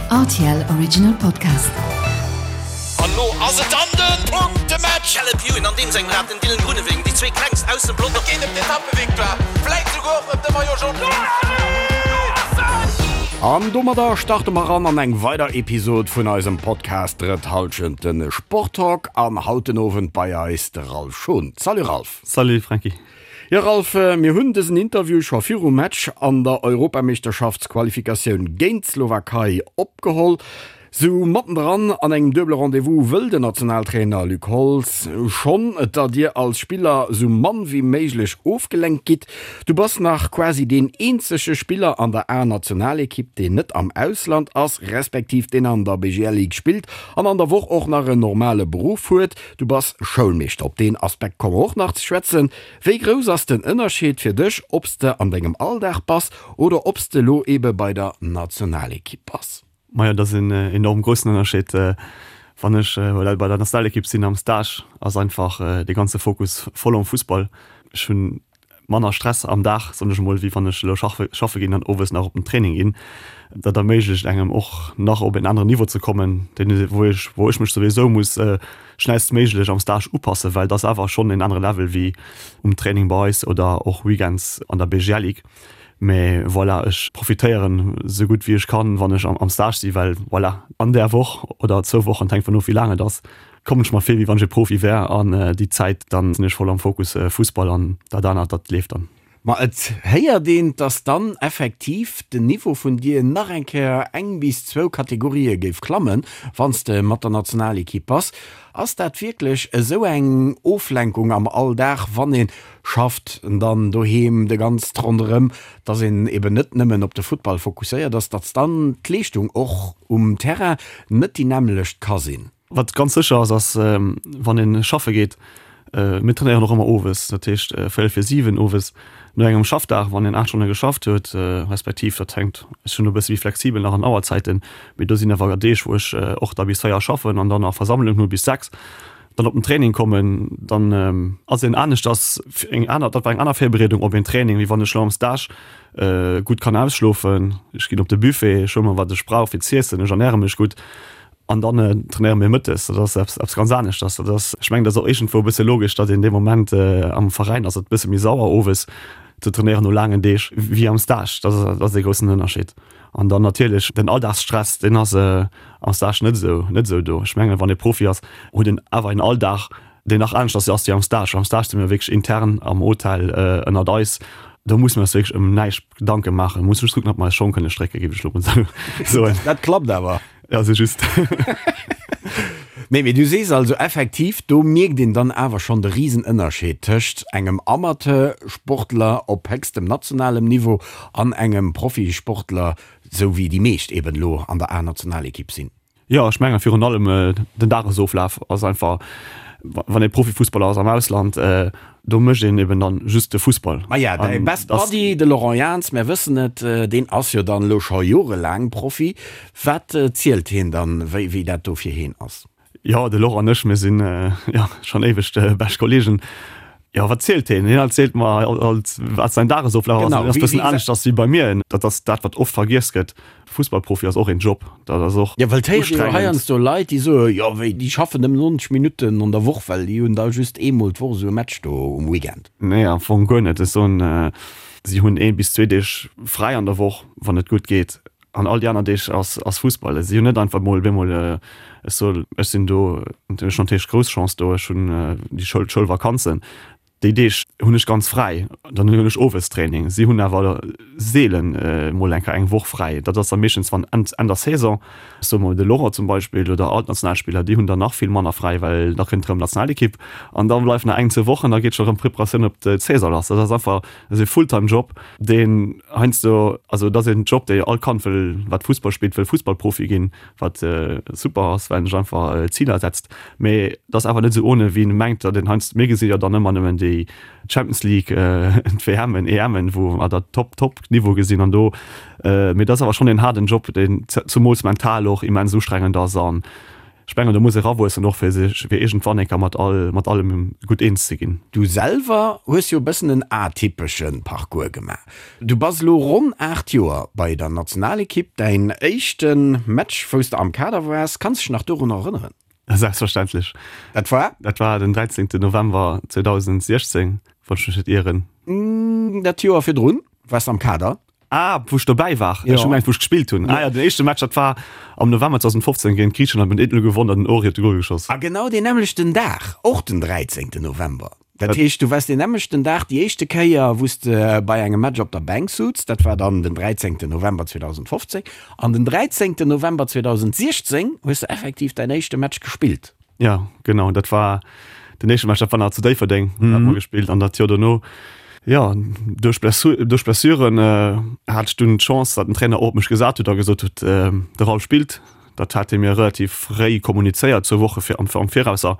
Rtl Original Podcast. An lo ass et dann den Punktematch! Caleb Ewan an deem sengem Rad, den Dylan Groenewegen, déi zwee klengst aus dem Pelotong. Et geet ëm d'Etappevictoire, vläit souguer och ëm de Maillot Jaune. An domadder starte mer ran an eng weider Episod vun eisem Podcast Drëtt Halschent, de Sporttalk. An haut den Owend bei eis de Ralph Schon. Salut Ralph! Salut Franky! Jo Ralph, mir hunn dësen Interview scho virum Match an der Europameeschterschaftsqualifikatioun géint d'Slowakei opgeholl. Sou mattendran an engem duebele Rendez-vous wëll den Nationaltrainer Luc Holtz schonn, datt dir als Spiller sou mann wéi méiglech ofgelenkt gitt. Du bass nach quasi deen eenzege Spiller an der A-Nationalekipp, deen net am Ausland ass, respektiv deen an der BGL Ligue spillt an an der Woch och nach en normale Beruff huet. Du bass Schoulmeeschter, op deen Aspekt komme mer och nach ze schwätzen. Wéi grouss ass den Ënnerscheed fir dech, ob s de an dengem Alldag bass oder ob s de elo ebe bei der Nationalekipp bass? Majo, dat ass en enorm groussen Ënnerscheed. Wann ech bei der Nationalekipp sinn am Stage, ass einfach de ganze Fokus voll um Fussball. Ech hunn manner Stress am Dag, soen ech emol, wéi wann ech elo schaffe ginn an owes nach op den Training ginn. Dat erméiglecht engem och nach op en aneren Niveau ze kommen, deen wou ech wou ech mech souwisou muss schnellstméiglech am Stage upassen, well et ass awer schonn en anere Level wéi um Training bei eis oder och Weekends an der BGL Ligue. Mee voilà, ech profitéieren esou gutt wéi ech kann, wann ech am Stage si, well voilà, an där Woch oder zwou Wochen, et hänkt vun of wéi laang et ass, kommen ech mer vir wéi wann ech e Profi wär an déi Zäit dann sinn ech voll am Fokus Fussball an dat anert dat leeft dann. Ma et héiert een, dass dann effektiv den Niveau vun dir nach eng Kéier eng bis zwou Kategorië géif klammen, wann s de mat der Nationalekipp bass. Ass dat wierklech esou eng Oflenkung am Alldag, wann ee schafft, dann doheem de ganzt ronderëm, dass een eben net nëmmen op de Futtball fokusséiert ass, dass dann d'Leeschtung och um Terrain net déi nämmlecht ka sinn? Wat ganz sécher ass, ass wann ee schaffe geet, mir trainéieren och ëmmer owes, dat heescht véierel vir 7 owes no engem Schaffdag, wann een 8 Stonne geschafft huet, respektiv dat hänkt, ech sinn do e bësse méi flexibel nach an Auerzäiten, mee do sinn awer Deeg wou ech och da bis 4 schaffen an dann nach Versammlung hu bis 6, dann op den Training kommen, dann ass een aneschters eng aner, dat war eng aner Virbereedung op een Training, wéi wann ech elo am Stage gutt kann ausschlofen, ech ginn op de Buffet, ech huele mer wat ech brauch fir z'iessen, ech ernäre mech gutt. An dann trainéiere mir mëttes. Dat ass eppes, eppes ganz aneschters. Dat ass, ech mengen, dat ass och iergendwou e bësse logesch, datt een dee Moment am Veräin ass et e bësse méi sauer owes ze trainéieren no laangen Deeg wéi am Stage. Dat ass, dat ass dee groussen Ënnerscheed. An dann natierlech den Alldagsstress, deen ass am Stage net esou, net esou do. Ech mengen, wann ee Profi ass, huet en awer en Alldag, deen nach aneschters ass wéi am Stage. Am Stage si mir wierklech intern am Hotel ënnert eis. Do musse mir eis wierklech ëm näischt Gedanke maachen. Mir musse just kucken, datt mer eis Schong kënne strécken, géif ech elo mol soen. Dat klappt awer. Ja, se just. Nee, mee du sees also effektiv, do mierkt een dann awer schonn de Risenënnerscheed tëscht engem Amateursportler op héchstem nationalem Niveau an engem Profisportler, sou wéi déi meescht eben elo an der A-Nationalekipp sinn. Jo, ech mengen virun allem den Dagesoflaf ass einfach, wann ee Profifussballer ass am Ausland, do mécht een eben dann just de Fussball. Maja, däi Best Buddy, de Laurent Jans, mär wëssen et, deen ass jo dann elo scho jorelaang Profi. Wat zielt hien dann, wéi wéi dat do fir heen ass? Jo, de Laurent an ech, mir sinn jo schonn éiweg bescht Kollegen. Jo, wat zielt heen? Hien erzielt mer alt, wat säin Dagesoflaf ass. Dat ass e bëssen aneschters wéi bei mir. Dat ass dat, wat oft vergiess gëtt. Fussballprofi ass och een Job, dat ass och Jo, well et héiert ee jo heiansdo Leit, déi soen, jo wéi, déi schaffen nëmmen 90 Minutten an der Woch, well déi hunn da just eemol d'Woch esou e Match do um Weekend. Nee, am Fong guer net. Ech soen, si hunn ee bis zwee Deeg fräi an der Woch, wann et gutt geet, an all déi aner Deeg ass ass Fussball. Si hunn net einfach mol bemol, ech soen, ech sinn do, ech hunn natierlech grouss Chance do, ech hunn déi Schoul, d'Schoulvakanzen, Déi Deeg hunn ech ganz fräi, dann hunn ech owes Training. Si hunn awer seelen mol eng Kéier eng Woch fräi. Dat ass da meeschtens wann Enn der Saison, ech soe mol de Laurent zum Beispill oder all d'Nationalspiller, déi hunn dann nach vill manner fräi, well da kënnt erëm d'Nationalekipp an da bleift nach eng, zwou Wochen, da geet scho erëm d'Preparatioun op d'Saison lass. Dat ass einfach, dat ass e Fulltime-Job, deen heiansdo, also dat ass en Job, dee all Kand wëll, wat Fussball spillt, wëll Fussballprofi ginn. wat super ass, well en sech einfach Ziler setzt, mee et ass awer net esou ohne wéi een mengt, datt een heiansdo, mir gesi jo dann ëmmer nëmmen déi Champions League, d'WMen, EMen, wou mer dat Top Top Niveau gesinn an do, mee et ass awer schonn een haarden Job, deen zumools mental och immens ustrengend ass an. Ech mengen, do muss ee rawuessen och, fir sech, fir iergendwann eng Kéier mat all, mat allem gutt eens ze ginn. Du selwer hues jo e bëssen en atypesche Parcours gemaach. Du bass elo ronn 8 Joer bei der Nationalekipp. Däin éischte Match, wou s de am Kader waars, kanns dech nach dorunner erënneren? Selbstverständlech. Dat war? Dat war den 13. November 2016, wann ech mech net ieren. Dat Joer virdrun waars de am Kader. Ah, wou ech dobäi war? Ech hu gemengt, wou ech gespillt hunn. Ah jo, den éischte Match, dat war am November 2015 géint Griichenland. Mir hunn 1-0 gewonnen an den Ori huet de Gol geschoss. A genau deen nämmlechten Dag, och den 13. November. Dat heescht, du waars deen nämmlechten Dag déi éischte Kéier, wou s de bei engem Match op der Bänk sutz. Dat war dann den 13. November 2015. An den 13. November 2016 hues de effektiv däin éischte Match gespillt. Jo, genau, dat war den éischte Match, dat war nach zu Déifferdeng, mm. hat mer gespillt an dat Joer dono, ja, duerch Blessu duerch Blessuren äh, hat ech dunn d'Chance, datt den Trainer och op mech gesat huet a gesot huet, äh, de Ralph spillt. Dat hat hie mir relativ fréi kommunizéiert, zwou Woche fir am am Virausser.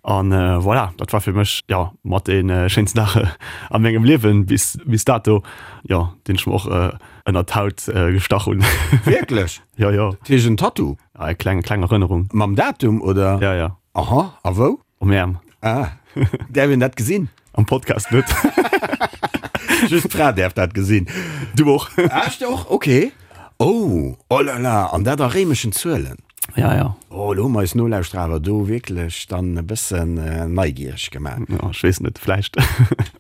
An äh, voilà, dat war fir mech ja mat dee äh, schéinsten Dag a mengem Liewen bis bis dato, ja, deen ech mer och äh, ënnert d'Haut äh, gestach hunn. Wierklech? Jo, jo. Dat heescht en Tattoo? Ah, eng kleng, kleng Erënnerung. Mam Datum, oder? Ja, ja. Aha, a wou? Um Äerm. Ah, däerf een dat gesinn? Am Podcast net. Just d'Fra däerf dat gesinn. Du och. Ah, ech och? Okay. Oh, oh là là, an dat a réimeschen Zuelen. Ja, ja. Oh, elo hu mer eis Nolauschterer awer do wierklech dann e bëssen neigiereg gemaach. Ja, ech weess net, vläicht.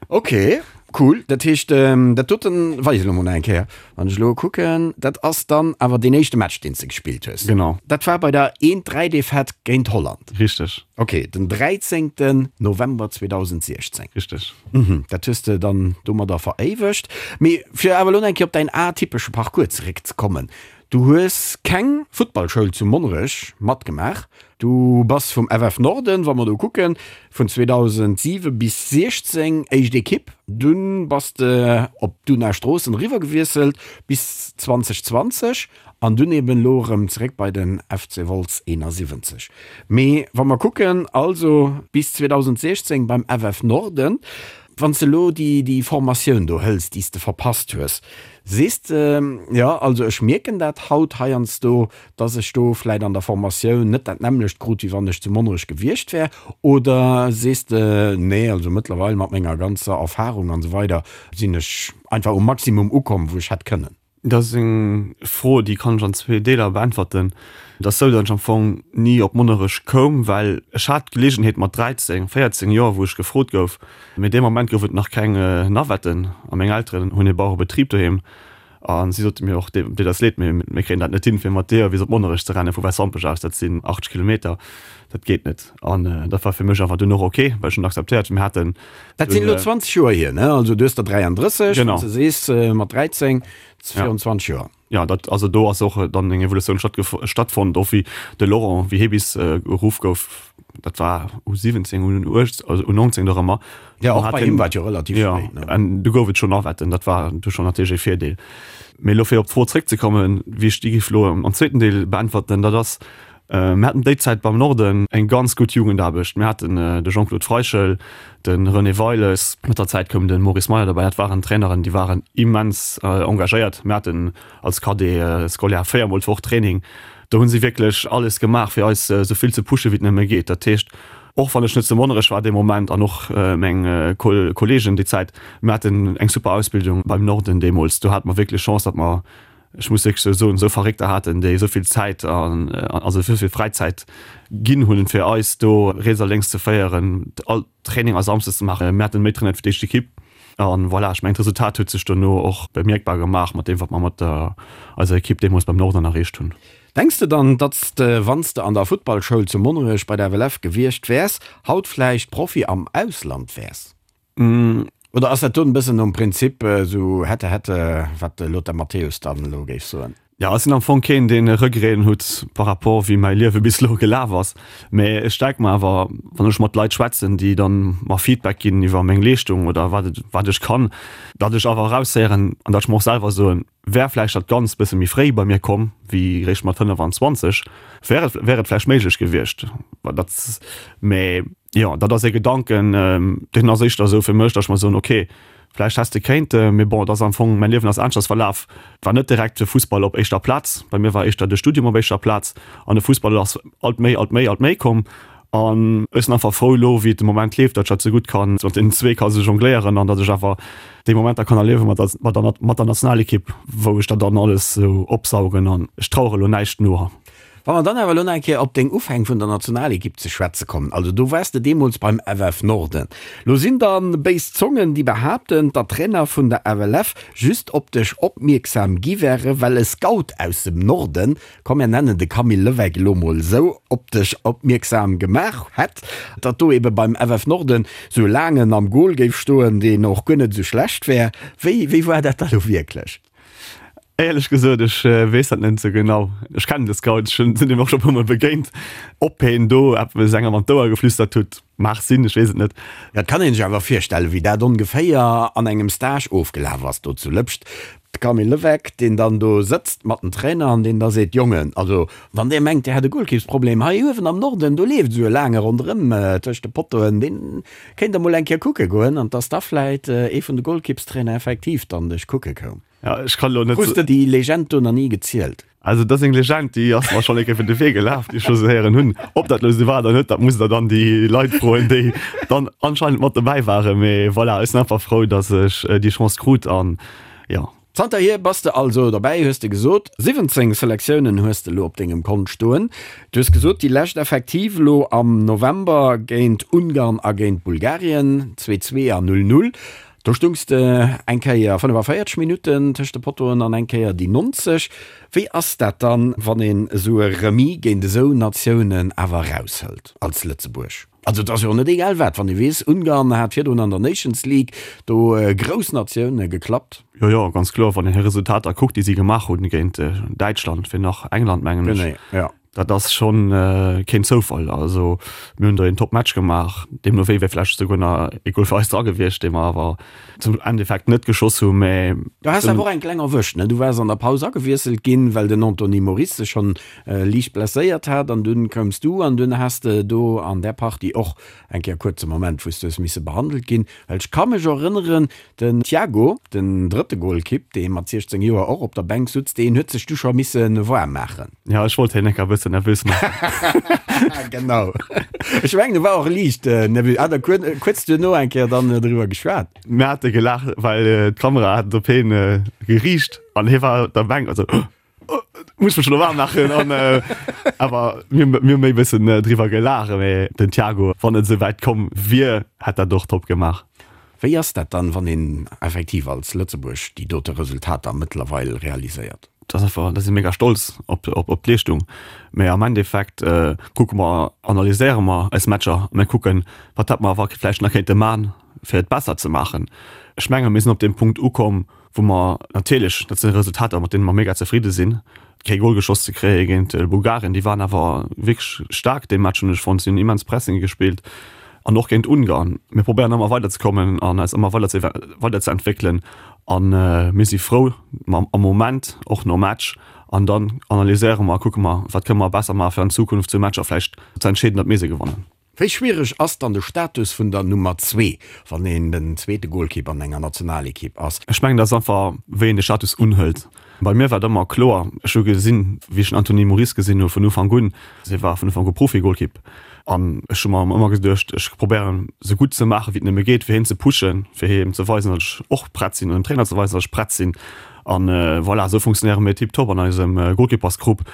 Okay. Cool, dat heescht dat doten weis elo mol nach eng Kéier, wann ech elo kucken, dat ass dann awer deen éischte Match deen s de gespillt hues. Genau. Dat war bei der 1, 3 Defaite géint Holland. Richteg. Ok, den 13 November 2016. Richteg. Mhm, dat hues de dann domadder veréiwegt. Mee fir awer elo nach eng Kéier op däin atypesche Parcours zeréckzekommen, Du hues keng Futtballschoul zu Monnerech matgemaach. Du bass vum FF Norden, wa mer do kucken, vun 2007 bis 16 éischt Ekipp. Dunn bass de op d'Una Stroossen eriwwer gewiesselt bis 2020 an dunn eben elo erëm zeréck bei den FC Wolz 71. Mee wa mer kucken, also bis 2016 beim FF Norden. Wann s de elo déi Formatioun do hëls, déi s de verpasst hues, sees de, jo, also ech mierken dat haut heiansdo, dass ech do vläit an der Formatioun net dat nämmlecht krut, wéi wann ech zu Monnerech gewiescht wär? Oder sees de, nee, also mëttlerweil mat menger ganzer Erfahrung an esou weider sinn ech einfach um Maximum ukomm, wou ech hätt kënnen? Dat ass eng Fro, déi kann ech an zwee Deeler beäntwerten. Et ass esou, datt ech am Fong ni op Monnerech koum, well ech hat d'Geleegenheet mat 13, 14 Joer, wou ech gefrot gouf, mee dee Moment gouf et nach keng Navetten a meng Elteren hunn e Bauerebetrib doheem a si sote mir och, Dir dat leed, mee mir kréien dat net hin, fir mat dir bis op Monnerech ze renne vu Wäiswampech aus, dat sinn 80 Kilometer, dat geet net. An dat war fir mech awer dunn och ok, well ech hunn akzeptéiert, mir haten Dat sinn elo 20 Joer hier, ne? Also du hues der 33, Genau. wann s de sees, mat 13, 24 Joer. Ja, dat, also do ass och dann eng Evolutioun stattfonnt, och wéi de Laurent, wéi hie bis geruff gouf, dat war U 17, U 18, also U 19 nach ëmmer. Ja, och bei him war et jo relativ spéit, ne? Ja, an du gouf et schonn Navetten, dat war du schonn natierlech e Virdeel. Mee elo fir op d'Fro zréckzekommen, wéi ech déi géif elo am zweeten Deel beäntwerten, dat ass, Mir haten déi Zäit beim Norden eng ganz gutt Jugendaarbecht. Mir haten de Jean-Claude Freichel, de René Weiles, mat der Zäit koum de Maurice Meyer derbäi. Dat waren Traineren, déi waren immens engagéiert. Mir haten als Cadet scolaire véiermol d'Woch Training. Do hu si wierklech alles gemaach, fir eis esou vill ze pushen, wéi et nëmme geet. Dat heescht, och wann ech net zu Monnerech war dee Moment an och meng Kolleegen déi Zäit, mir haten eng super Ausbildung beim Norden deemools. Do hate mer wierklech Chance, datt mer ech muss wierklech esou soen, esou Verréckter haten, déi esou vill Zäit an also esou vill Fräizäit ginn hunn, fir eis do riets a lénks ze féieren, all Traininger samsdes ze maachen. Mir haten méi trainiert wéi d'éischt Ekipp. An voilà, ech mengen, d'Resultat huet sech dono och bemierkbar gemaach mat deem, wat mer mat der eiser Ekipp deemools beim Norden erreecht hunn. Denks de dann, datt s de, wann s de an der Futtballschoul zu Monnerech bei der FLF gewiescht wäers, haut vläicht Profi am Ausland wäers? Oder ass dat do en bëssen nom Prinzip esou hätte hätte, wat de Lothar Matthäus dann elo géif soen? Jo, ech sinn am Fong keen, deen Regreten hutt par rapport wéi mäi Liewe bis elo gelaf ass. Mä ech denke mer awer, wann ech mat Leit schwätzen, déi dann mer Feedback ginn iwwer meng Leeschtung oder wat et, wat ech kann, datt ech awer eraushéieren an datt ech mer och selwer soen, wär vläicht dat Ganzt bësse méi fréi bei mir komm wéi réischt mat 25, wär et, wär et vläicht méiglech gewiescht. Dat, mä jo, dat ass e Gedanken, deen ass éischter esou fir mech, datt ech mer soen, okay,. Vläicht häss de kéinte, mee bon, et ass am Fong, mäin Liewen ass aneschters verlaf. War net direkt de Fussball op éischter Plaz. Bei mir war éischter de Studium op éischter Plaz an de Fussball ass alt méi, alt méi, alt méi komm. An ech sinn einfach frou elo, wéi et de Moment leeft, datt ech dat sou gutt kann, mat deenen zwee ka sou jongléieren an datt ech awer déi Momenter kann erliewe mat der, mat der, mat der Nationalekipp, wou ech dat dann alles sou opsaugen an ech trauere elo näischt no. Wa mer dann awer elo nach eng Kéier op deng Ufäng vun der Nationalekipp ze schwätze kommen, also do waars de deemools beim FF Norden. Lo sinn da béis Zongen, déi behaapten, datt d'Trainer vun der FLF just op dech opmierksam gi wäre well e Scout aus dem Norden, komm mir nennen de Camille Levecq elo mol esou, op dech opmierksam gemaach hätt, datt do ebe beim FF Norden sou e Laangen am Gol géif stoen, deen och guer net esou schlecht wär. Wéi, wéi war dat da lo wierklech? Éierlech gesot, ech weess dat net esou genau. Ech kennen de Scout, ech sinn him och scho e puer Mol begéint. Ob heen do eppes engem an d'Ouer geflüstert hutt, mag sinn, ech weess et net. Jo, et kann een sech awer virstellen, wéi dat ongeféier an engem Stage ofgelaf ass do zu Lëpscht. De Camille Levecq, deen dann do sëtzt mat den Trainer an deen da seet, Jongen, also wann där mengt, där hätt e Golkippsproblem, hei uewen am Norden, do leeft esou e Laange ronderëm tëscht de Pottoen, deen kéint der mol eng Kéier kucke goen. An dass da vläit ee vun de Golkippstrainer effektiv dann dech kucke koum. Ja, ech kann lo net. Hues de déi Legend do nach ni gezielt? Also dat ass eng Legend, déi ass mer schonn eng Kéier iwwer de Wee gelaf, déi ech scho sou héieren hunn. Ob dat lo sou war oder net, dat musst der dann déi Leit froen, déi dann anscheinend mat dobäi waren. Mee voilà, ech sinn einfach frou, datt ech déi Chance krut an jo. Zanterhier bass de also dobäi, hues de gesot. 17 Selektiounen hues de lo op dengem Kont stoen. Du hues gesot, déi lescht effektiv lo am November géint Ungarn a géint Bulgarien, 2, 2 a 0, 0. Do stungs de eng Kéier 45 Minutten tëscht de Pottoen an eng Kéier déi 90. Wéi ass dat dann, wann een esou e Remis géint esou Natiounen awer eraushëlt als Lëtzebuerg? Also et ass jo och net egal wat, wann ee weess, Ungarn hat virdrun an der Nations League do grouss Natioune geklappt. Jo, jo, ganz kloer. Wann een hir Resultater kuckt, déi si gemaach hunn géint Däitschland, wéi nach England, mengen ech. Genee, jo. Dat ass schonn keen Zoufall. Also mir hunn do een Top-Match gemaach, deemno wéi wär vläicht esouguer nach ee Gol fir eis dra gewiescht, dee mer awer zum Endeffekt net geschoss hunn. Mä Du has awer och eng kleng erwëscht, ne? Du waars an der Paus agewiesselt ginn, well den Anthony Moris sech schonn liicht blesséiert hat an dunn koums du an dunn has de do an där Partie och eng Kéier kuerze Moment, wou s du hues misse behandelt ginn. Well ech ka mech erënneren, Den Thiago, den drëtte Golkipp, dee mat 16 Joer och op der Bänk sutz, deen huet sech du scho misse waarm maachen. Jo, ech wollt hien enker e bëssen nervös maachen. Genau. Ech mengen, e war och liicht nervös. Hat der kuerz duerno eng Kéier dann driwwer geschwat? Mir hate gelaacht, well d'Kamera hat et op hien geriicht an hie war op der Bänk an sou, Muss mech lo waarm maachen an awer mir mir hu méi bëssen driwwer gelaacht, mee den Thiago, wann et esou wäit komm wier, hätt dat och top gemaach. Wéi ass dat dann, wann een effektiv als Lëtzebuerg déi dote Resultater mëttlerweil realiséiert? Dat ass einfach, da si mega stolz op op d'Leeschtung, mee am Endeffekt kucke mer, analyséiere mer eis Matcher a mir kucken, wat hätt mer awer vläicht nach kéinte man, fir et besser ze maachen. Ech menge mir sinn op deem Punkt ukomm, wou mer natierlech, dat si Resultater, mat deene mer mega zefridde sinn, kee Gol geschoss ze kréie géint Bulgarien, déi waren awer wierklech staark dee Match, hunn ech fonnt, si hunn immens Pressing gespillt an och géint Ungarn. Mir probéieren ëmmer weiderzekommen an eis ëmmer weider ze weiderzeentwéckelen a mir si frou am Moment, och nom Match an dann analyséiere mer a kucke mer, wat kënne mer besser maache fir an Zukunft sou Matcher vläicht ze entscheeden, datt mir se gewannen. Wéi schwiereg ass dann de Status vun der Nummer zwee, wann een den zweete Golkipp an enger Nationalekipp ass? Ech mengen, dat ass einfach, wéi een de Status unhëlt. Bei mir war et ëmmer kloer, ech hu gesinn, wéi ech den Anthony Moris gesinn hu vun Ufank un, hie war vun Ufank u Profi-Golkipp an ech hu mer ëmmer geduecht, ech probéieren esou gutt ze maachen, wéi et nëmme geet, fir hien ze pushen, fir him ze weisen, datt ech och prett sinn an dem Trainer ze weisen, datt ech prett sinn. An voilà, esou funktionéiere mir tiptop an eisem Golkippersgrupp.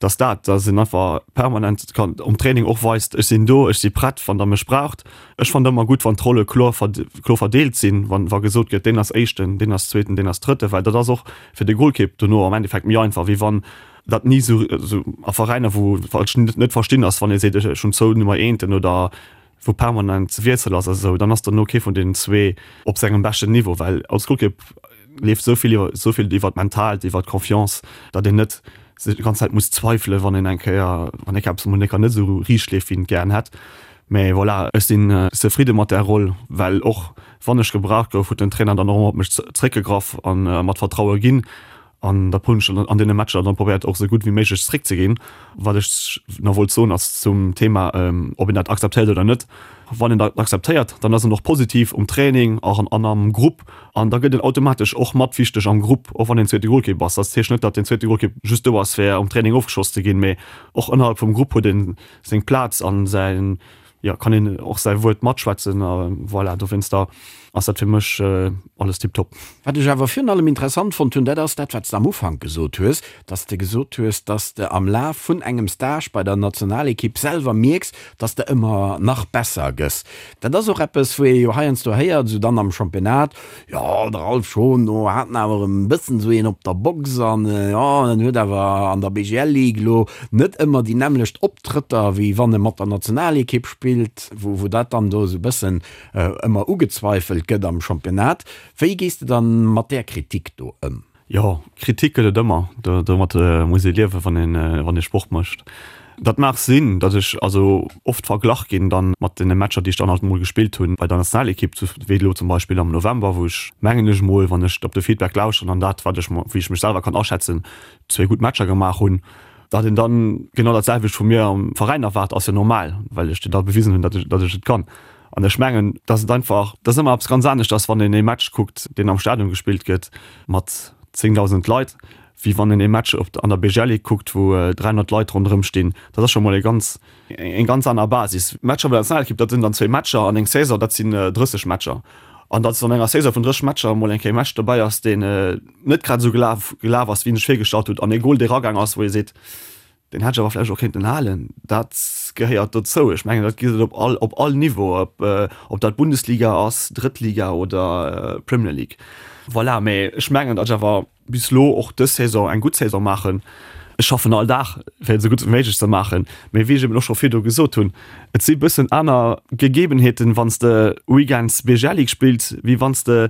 Dass dat, dass een einfach permanent kann um Training och weist, ech sinn do, ech si prett, wann der mech braucht. Ech fannen ëmmer gutt, wann d'Rolle kloer kloer verdeelt sinn, wann wa gesot gëtt, deen ass Éischten, deen ass Zweeten, deen ass Drëtten, well dat ass och fir de Golkipp dono am Endeffekt méi einfach, wéi wann dat ni esou esou a Veräiner, wou wat ech net verstinn ass, wann ee seet, ech hunn zwou Nummer eenten oder wou permanent Wiessel ass a sou, dann ass dono kee vun deenen zwee op sengem beschten Niveau, well als Golkipp leeft esou vill iwwer esou vill iwwer d'Mentaalt, iwwer d'Confiance, datt een net sech déi ganz Zäit muss zweifelen, wann een eng Kéier, wann eng Kéier eppes emol net esou riicht leeft, wéi een et gären hätt. Mä voilà, ech sinn zefridde mat där Roll, well och wann ech gebraucht gouf, huet den Trainer dann och ëmmer op mech zréckgegraff a mer d'Vertraue ginn. An da hunn ech an deene Matcher dann probéiert och esou gutt wéi méiglech zréckzeginn. Wat ech nach wollt soen ass zum Thema, ob een dat akzeptéiert oder net. Wann een dat akzeptéiert, dann ass en och positiv um Training an am Grupp an da gëtt en automatesch och mat wichteg am Grupp, och wann een zweete Golkipp ass. Dat heescht net, datt den zweete Golkipp just do ass, fir um Training ofgeschoss ze ginn, mee och ënnerhalb vum Grupp huet e seng Plaz an säin jo, kann een och säi Wuert matschwätzen a voilà, dowéinster ass dat fir mech alles tiptop. Wat ech awer virun allem interessant fonnt hunn, dat ass dat, wat s de am Ufank gesot hues, dass de gesot hues, dass de am Laf vun engem Stage bei der Nationalekipp selwer mierks, dass de ëmmer nach besser gëss. Dat ass och eppes, wou ee jo heiansdo héiert, esou dann am Championnat, Jo, de Ralph Schon, do hat en awer e bëssen esou een op der Box an jo, en huet awer an der BGL Ligue elo net ëmmer déi nämmlecht Optrëtter, wéi wann e mat der Nationalekipp spillt, wou wou dat dann do esou e bëssen ëmmer ugezweifelt gëtt am Championnat. Wéi gees de dann mat där Kritik do ëm? Jo, Kritik gëtt et ëmmer. Domat muss ee liewen, wann een, wann ee Sport mécht. Dat mag sinn, datt ech also oft verglach ginn dann mat deene Matcher, déi ech dann halt emol gespillt hunn bei der Nationalekipp, wéi elo zum Beispill am November, wou ech, mengen ech emol, wann ech op de Feedback lauschteren an dat, wat ech, wéi ech mech selwer kann aschätzen, zwéi gutt Matcher gemaach hunn. Datt een dann genau dat selwecht vu mir am Veräin erwaart, ass jo normal, well ech da bewisen hunn, datt ech, datt ech et kann. An ech mengen, datt et einfach, dat ass ëmmer eppes ganz aneschters, wann een ee Match kuckt, deen am Stadion gespillt gëtt mat 10.000 Leit, wéi wann een ee Match op an der BGL Ligue kuckt, wou 300 Leit ronderëm stinn. Dat ass scho mol e ganz, eng ganz aner Basis. Matcher bei der Nationalekipp, dat sinn dann zwéi Matcher an eng Saison, dat sinn 30 Matcher. An datt an enger Saison vun 30 Matcher emol eng Kéier e Match dobäi ass, deen net grad esou gelaf gelaf ass, wéi een sech virgestallt huet, an ee Gol, dee ragaang ass, wou ee seet, Deen hätt ech awer vläicht och kéinten halen. Dat gehéiert dozou. Ech mengen, dat gëtt et op all, op all Niveau, ob, ob dat Bundesliga ass, Drëttliga oder Premier League. Voilà, mä ech mengen, datt ech awer bis elo och dës Saison eng gutt Saison maachen. Ech schaffen all Dag, fir et esou gutt wéi méiglech ze maachen. Mä wéi ech eben och scho virdu gesot hunn, et si bëssen aner Gegebenheeten, wann s de weekends BGL League spills, wéi wann s de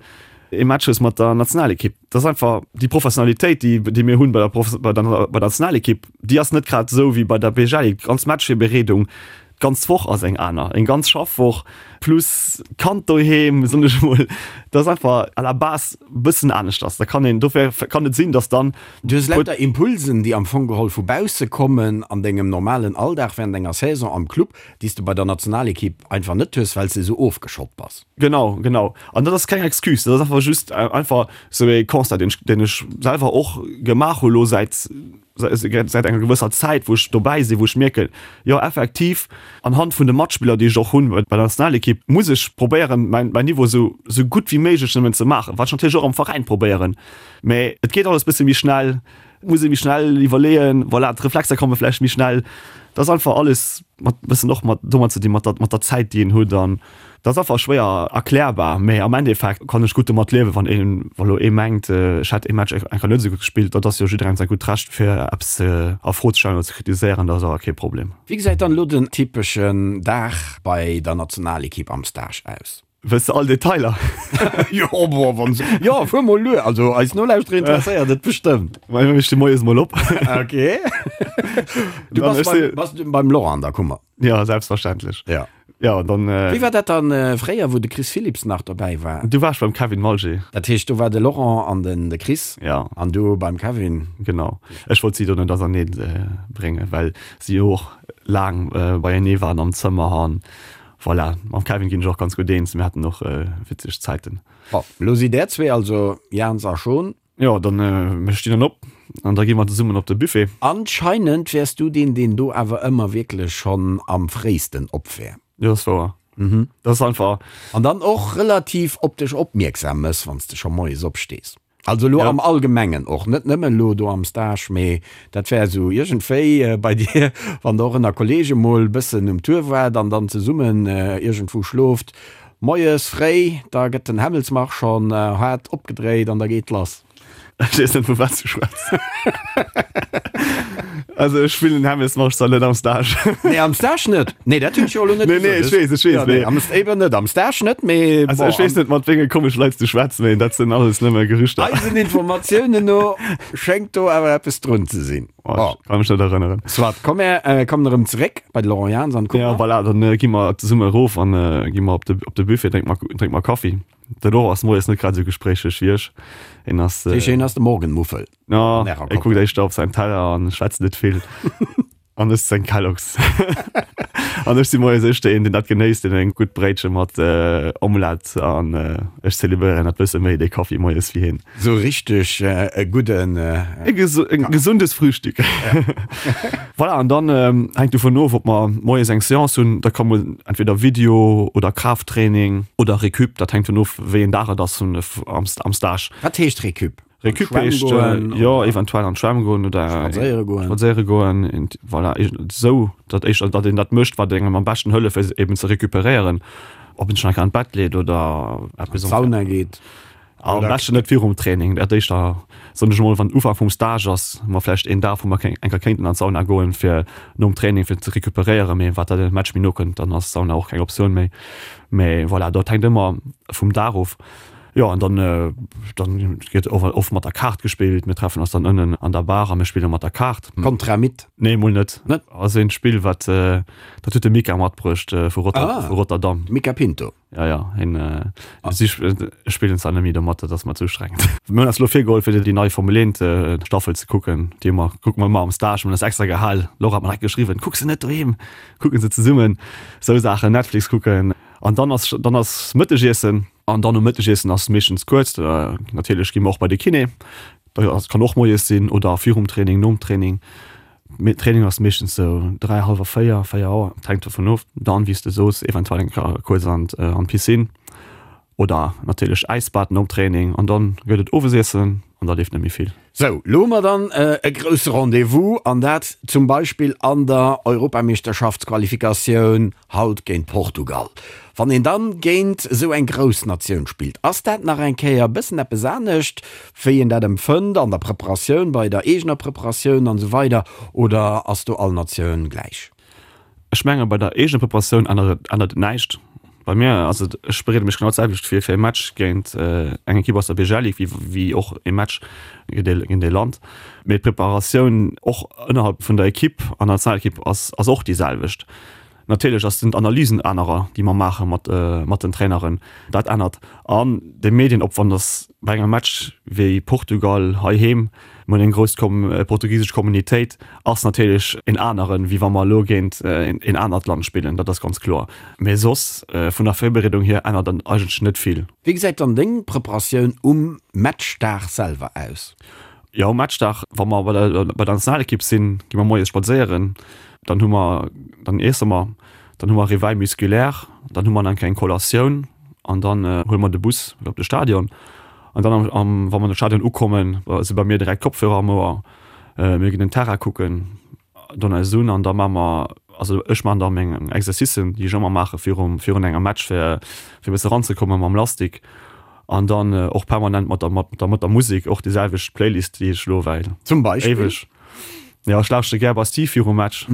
ee Match hues mat der Nationalekipp. Dat ass einfach déi Professionalitéit, déi, déi mir hunn bei der, bei der, bei der Nationalekipp, déi ass net grad esou wéi bei der BGL. Déi ganz Matchvirbereedung, d'ganz Woch ass eng aner, eng ganz Schaffwoch plus Kand doheem, soen ech emol. Dat ass einfach à la base e bëssen aneschters. Da kann een, dofir kann et sinn, datt dann. Du hues lauter Impulsen, déi am Fong geholl vu bausse kommen an dengem normalen Alldag während enger Saison am Club, déi s de bei der Nationalekipp einfach net hues, well s de esou ofgeschott bass. Genau, genau. An dat ass keng Excuse, dat ass einfach just einfach sou ee Constat, deen ech, deen ech selwer och gemaach hu lo säit, säit enger gewësser Zäit, wou ech dobäi sinn, wou ech mierken, jo effektiv, anhand vun de Matspiller, déi ech och hunn bei der Nationalekipp, muss ech probéieren, mäin, mäin Niveau sou, sou gutt wéi méiglech nëmmen ze maachen, wat ech natierlech och am Veräin probéieren, mä et geet alles bësse méi schnell. Muss ee méi schnell iwwerleeën, voilà, d'Reflexer komme vläicht méi schnell. Dat ass einfach alles mat bëssen och mat domat ze dinn, mat der, mat der Zäit, déi een huet an dat ass einfach schwéier erklärbar. Mee am Endeffekt kann ech gutt domat liewen, wann een, wa lo ee mengt, ech hätt ee Match eng Kéier net esou gutt gespillt. Dat ass jo jidderengem säi gutt Recht, fir eppes ze a Fro ze stellen oder ze kritiséieren, dat ass awer kee Problem. Wéi gesäit dann elo den typeschen Dag bei der Nationalekipp am Stage aus? Wëlls de all Detailer? Jo, bon, wann se. Jo, fuer mol luer. Also eis Nolauschterer interesséiert et bestëmmt. Well mir sti moies mol op. Okay. Du bass beim, bass du beim Laurent an der Kummer? Ja, selbstverständlech. Ja. Ja, dann. Äh, Wéi war dat dann äh, fréier, wou de Chris Philipps nach dobäi war? Du waars beim Kevin Malger. Dat heescht, do war de Laurent an den de Chris. Ja. An du beim Kevin. Genau. Ech wollt si do net auserneeën äh, bréngen, well si och laang äh, beienee waren am Zëmmer an Voilà, mam Kevin ginn ech och ganz gutt eens, mir haten och witzeg Zäiten. Bon, elo sidd där zwee also, Jans a Schon. Jo, dann, mir stinn dann op an da gi mer zesummen op de Buffet. Anscheinend wäers du deen, deen do awer ëmmer wierklech schonn am fréisten op wär. Jo, dat ass wouer. Dat ass einfach. An dann och relativ op dech opmierksam mëss, wann s de scho moies opstees. Also elo am Allgemengen och, net nëmmen elo do am Stage, mee dat wär esou iergendwéi bei dir, wann der och ënner Kollege mol bëssen um Tour waart an dann zesummen iergendwou schlooft, moies fréi, da gëtt den Hämmelsmarsch schonn haart opgedréit an da geet lass. Ech weess net vu wat s du schwätz. Also ech spillen den Hämmelsmarsch zwar net am Stage. Nee, am Stage net. Nee, dat hunn ech jo elo net Nee, nee, ech weess, ech weess, Ja, nee, am, eben net, am Stage net, mee Also ech weess net mat wéinge komesche Leit s du schwätz, mee dat sinn alles nëmme Gerüchter. Eisen Informatiounen no schéngt do awer eppes drun ze sinn. Oh, ech kann mech net erënneren. Soit, komm mir äh, kommen erëm zeréck bei de Laurent Jans an d'Kummer. Ja, voilà, dann äh, gi mer zesumme erof an äh, gi mer op de, op de Buffet, drénke mer, drénke mer Kaffi. De Laurent ass moies net grad esou gespréicheg wéi ech. En ass. Äh, Hien ass de Morgenmuffel. Ja, e kuckt éischter op säin Teller an schwätzt net vill. An ësst seng Kellogg's. An ech si moies éischter een, deen dat genéisst, deen eng gutt Bréitche mat Omelette an ech zelebréieren dat bësse méi, dee Kaffi moies, wéi hien. Sou richteg e gudden. E gesundes Frühstück. Voilà, an dann hänkt dovun of, ob mer moies eng Seance hunn. Da ka mol entweder Video oder Kraafttraining oder Récup, dat hänkt dovun of, wéi een Dag et ass am Stage. Wat heescht Récup? Récup heescht jo eventuell an d'Schwämm goen oder spadséiere goen. Spadséiere goen, voilà, esou datt éischter datt een dat mécht wat engem am beschten hëlleft fir eben ze recuperéieren. Ob een sech nach an d'Bett leet oder eppes. An d'Sauna geet. Am beschten net virum Training, dat éischter soen ech emol wann Ufank vum Stage ass, hu mer vläicht een Dag wou mer eng Kéier kéinten an d'Sauna goen fir nom Training fir ze recuperéieren, mee wat dat de Match méi no kënnt, dann ass d'Sauna och keng Optioun méi. Mee voilà, dat hänkt ëmmer vum Dag of. Jo an dann dann gëtt och oft mat der Kaart gespillt. Mir treffen eis dann ënnen an der Bar a mir spille mat der Kaart. Contra Mit? Nee mol net. Net? Ass een Spill wat dat huet de Mika matbruecht vu Rotter ah, vu Rotterdam. Mika Pinto. Ja ja hien ah. si spillen zwar net méi domat, dat ass mer ze ustrengend. Mir hunn eis elo virgeholl fir déi nei Formel 1 Staffel ze kucken, déi mer kucke mer ëmmer am Stage. Mir hunn eis extra gehal. Laura hat mer direkt geschriwwen, kuck se net doheem, kucke se zesummen. Sou Saachen, Netflix kucken. An dann ass dann ass Mëttegiessen. An dann um Mëttegiessen ass meeschtens kuerz. Natierlech gi mer och bei de Kiné. Dat kann och moies sinn oder virum Training, nom Training. Mee Training ass meeschtens sou 3, hallwer 4, 4 Auer, et hänkt dovun of. Dann, wéi s de soos, eventuell eng Kéier kuerz an d'Piscine oder natierlech Äisbad nom Training. An dann gëtt et Owesiessen an da leeft net méi vill. Sou, lo hu mer dann e grousse Rendez-vous, an dat zum Beispill an der Europameeschterschaftsqualifikatioun haut géint Portugal. Wann een dann géint esou eng grouss Natioun spillt, ass dat nach eng Kéier e bëssen eppes anescht, wéi een dat empfënnt an der Preparatioun, bei der eegener Preparatioun an esou weider, oder ass do all Natioun gläich? Ech menge bei der eegener Preparatioun ännert et ännert et näischt. Bei mir ass et, ech bereede mech genau d'selwecht vir fir e Match géint eng Ekipp aus der BGL Ligue wéi wéi och e Match géint e géint e Land. Mee d'Preparatioun och ënnerhalb vun der Ekipp an der Nationalekipp ass ass och déi selwecht. Natierlech ass sinn d'Analysen anerer, déi mer maache mat mat den Traineren. Dat ännert. An de Medienopwand ass bei engem Match wéi Portugal heiheem, mir hunn eng grouss portugisesch Communitéit, ass natierlech en aneren, wéi wa mer elo géint en anert Land spillen, dat ass ganz kloer. Mee soss vun der Virbereedung hier ännert et eigentlech net vill. Wéi gesäit dann deng Preparatioun um Matchdag selwer aus? Jo, um Matchdag, wa mer bei der bei der Nationalekipp sinn, gi mer moies spadséieren, dann hu mer, dann iesse mer, dann hu mer Réveil musculaire, dann hu mer nach eng kleng Collatioun an dann huele mer de Bus op de Stadion. An dann am, wa mer an de Stadion ukommen, si bei mir direkt Kopfhörer am Ouer, mir ginn den Terrain kucken, don eis un an da maache mer, also ech maachen da meng Exercicen, déi ech ëmmer maache virum, virun engem Match, fir fir e bësse ranzekomme mam Lastik an dann och permanent mat der, mat der, mat der Musek, och déi selwecht Playlist, déi ech elo well Zum Beispill? éiweg. Jo, ech lauschtere gär Bastille virum Match,